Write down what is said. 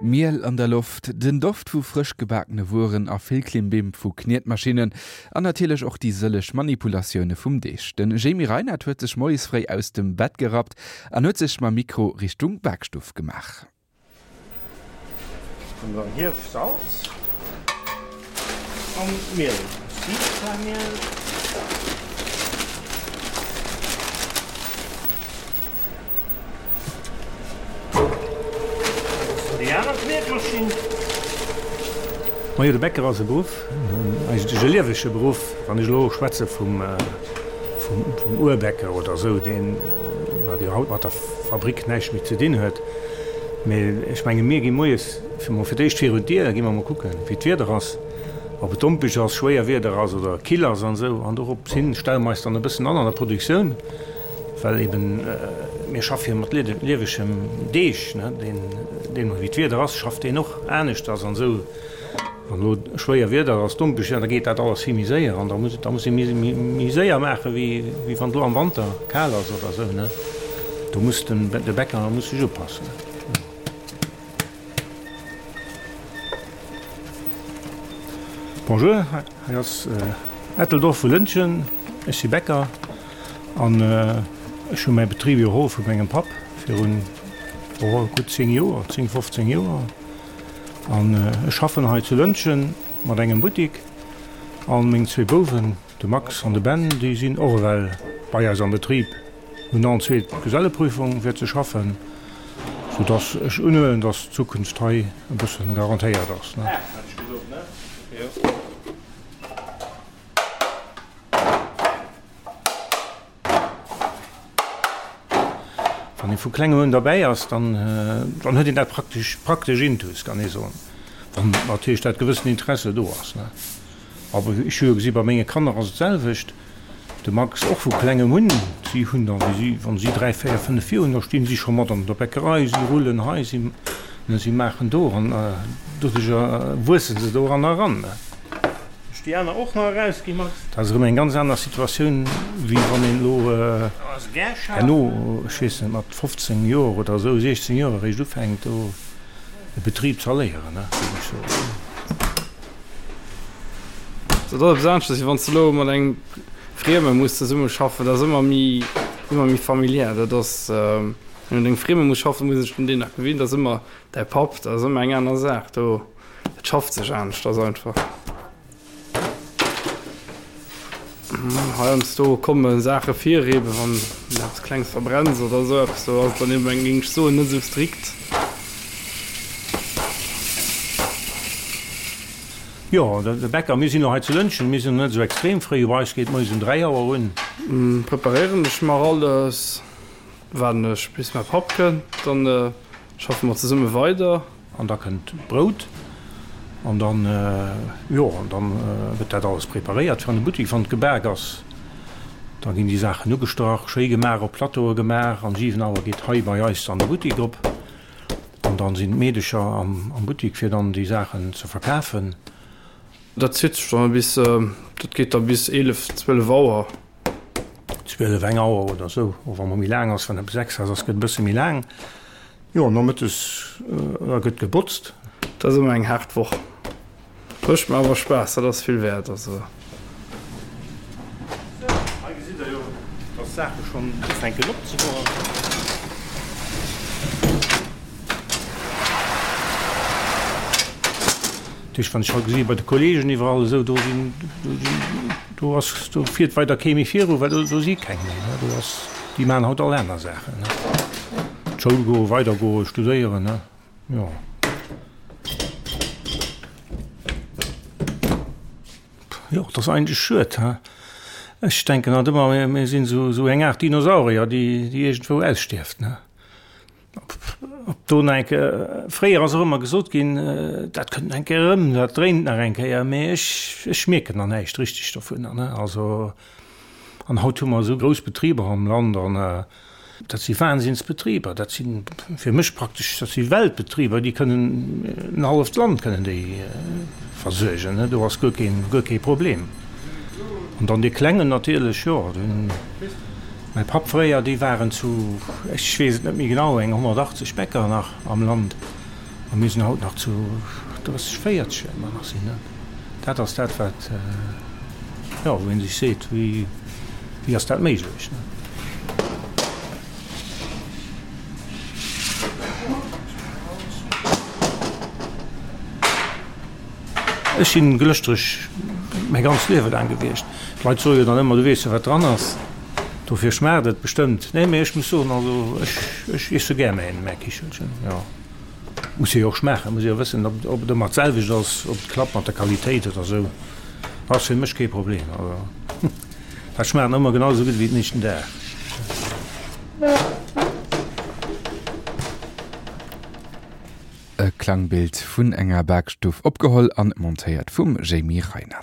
Miel an der Loft, den Doft vu frësch gebakene Wueren a vill Klimbim vu Knietmaschinnen an natierlech och déi sëlleg Manipulatioune vum Deeg. Den Jamie Reinert huet sech moies fréi aus dem Bett gerappt an huet sech mam Mikro Richtung Bakstuff gemaach. An dann Hief, Salz an Miel, Siefkarmiel. Déi aner Knietmaschinn. Majo, de Bäcker ass e Beruff, eigentlech e liewege Beruff. Wann ech elo schwätze vum Urbäcker oder esou, deen, wat jo haut mat der Fabrik näischt méi ze dinn huet, mee ech menge mir gi moies mol fir d'éischt virun d'Dier, da gi mer mol kucken, wéi d'Wieder ass, ob et dompeg ass, schwéier Wieder ass oder kill ass an esou. An dorops hin stelle mer eis dann e bëssen an an der Produktioun. Well eben, mir schaffe jo mat liewegem Deeg, ne, deen, deemno wéi d'Wieder ass, schafft deen och aneschters an esou. Wann elo schwéier Wieder ass, Dompeg, da geet dat alles vill méi séier an da muss, da muss ee méi, méi séier maache wéi, wéi wann et elo am Wanter kal ass oder esou, ne. Do muss den, de Bäcker muss sech upassen. Bonjour, hei ass Etteldorf vu Lëntgen. Ech si Bäcker an ech hu mäi Betrib iwwerholl vu mengem Papp virun gutt 10 Joer, 10, 15 Joer. An ech schaffen hei zu Lëntgen mat engem Buttik an meng zwee Bouwen, de Max an de Ben, déi sinn och ewell bei eis am Betrib. Hunn allen zweet Geselleprüfung fir ze schaffen, sou dass ech unhuelen, dass d'Zukunft hei e bëssen garantéiert ass. Wann ee vu klengem un derbäi ass, dann dann huet een dat praktesch praktesch intus, kann ee soen, wann natierlech dat gewëssen Interesse do ass. Awer ech hu jo gesi bei menge Kanner ass et d'selwecht. De Max och vu klengem un. Si hunn da wéi si, wann si 3, 4, 5 Joer hunn, da stinn si scho mat an der Bäckerei, si rullen hei, si ne si maachen do an doduercher wuessen se doranner eran. Ech déi aner och nach erausginn, Max? Dat ass erëm eng ganz aner Situatioun wéi wann een elo herno, ech weess net, mat 15 Joer oder esou, 16 Joer eréischt ufänkt do e Betrib z'erléieren, ne, géif ech soen. Dat ass eppes aneschters, wéi wann s de elo mat engem Frieme muss zesummeschaffen. Dat ass ëmmer méi, ëmmer méi familiär. Dat ass, wann du mat engem Frieme muss schaffen, muss een sech un deen nach gewinne. Dat ass ëmmer däi Papp, dat ass ëmmer eng aner Saach. Do, et schafft sech aneschters einfach. Heiansdo komme Saache vir, eebe wann de eppes Klengs verbrenns oder esou eppes, do ass et dann eben, géing ech soen, net esou strikt. Jo, de Bäcker, mir sinn elo hei zu Lëntgen, mir sinn elo net esou extrem fréi, bei eis geet moies um 3 Auer un. Preparéieren ech mer alles, waarden ech bis mäi Papp kënnt, dann schaffe mer zesumme weider. An da kënnt d'Brout an dann, jo, an dann gëtt dat alles preparéiert fir an de Buttik. Wann et gebak ass, da ginn déi Saachen ugestrach, schéi gemaach, op Plateaue gemaach. An 7 Auer geet hei bei eis dann de Buttik op an dann sinn d'Meedecher am Buttik fir dann déi Saachen ze verkafen. Dat zitt sech dann bis, dat geet da bis 11, 12 Auer. 12, eng Auer oder esou, och wa mol méi laang ass, wann eppes extra ass, gëtt e bësse méi laang. Jo, nomëttes da gëtt gebotzt. Dat ass ëmmer eng haart Woch. Mécht mer awer Spaass, dat ass vill wäert. Also. Sou, hei gesitt der jo, dass d'Saache schonn ufänken opzegoen. Dat heescht, wann ech haut gesi bei de Kolleegen iwwerall esou, do sinn, do ass, do fiert weider kee méi viru, well do si keng méi. Do ass, déi maachen haut all aner Saachen. D'Schoul goen, weidergoen, studéieren, jo. Jo, et ass eigentlech schued. Ech denken halt ëmmer, mir sinn esou eng Aart Dinosaurier, déi iergendwou ausstierft. Ob do nach eng Kéier, fréier ass och ëmmer gesot ginn, dat kënnt nach eng Kéier erëm, dat dréint nach eng Kéier, mee ech, ech mierken nach näischt richteg dovunner, ne. Also, an haut hu mer esou grouss Betriber am Land an dat si Wahnsinnsbetriber, dat si fir mech praktesch, dat si Weltbetriber, déi kënnen en halleft Land kënnen déi versuergen, ne, do ass guer keen, guer kee Problem. An dann dee Klengen natierlech, jo, deen. Mäi Papp fréier, déi waren zu, ech weess et net méi genau, eng 180 Bäcker nach am Land. A mir sinn haut nach zu 30, 40 wäerte mer nach sinn, ne? Dat ass dat, wat, jo, wou ee sech seet, Wéi, wéi ass dat méiglech, ne? Ech sinn gelëschtereg mäi ganzt Liewe laang gewiescht. D'Leit soe jo dann ëmmer, du weess jo wat dran ass, dofir schmaacht et bestëmmt. Nee, mee ech muss soen, also ech ech iesse gär mäin mäi Kichelchen, jo. Muss jo och schmaachen, muss jo wëssen ob ob et ëmmer d'selwecht ass, ob et klappt mat der Qualitéit oder sou. Ass fir mech kee Problem, also dat schmaacht ëmmer genau esou gutt wéi den éischten Dag. E Klangbild vun enger Bakstuff, opgeholl an montéiert vum Jamie Reinert.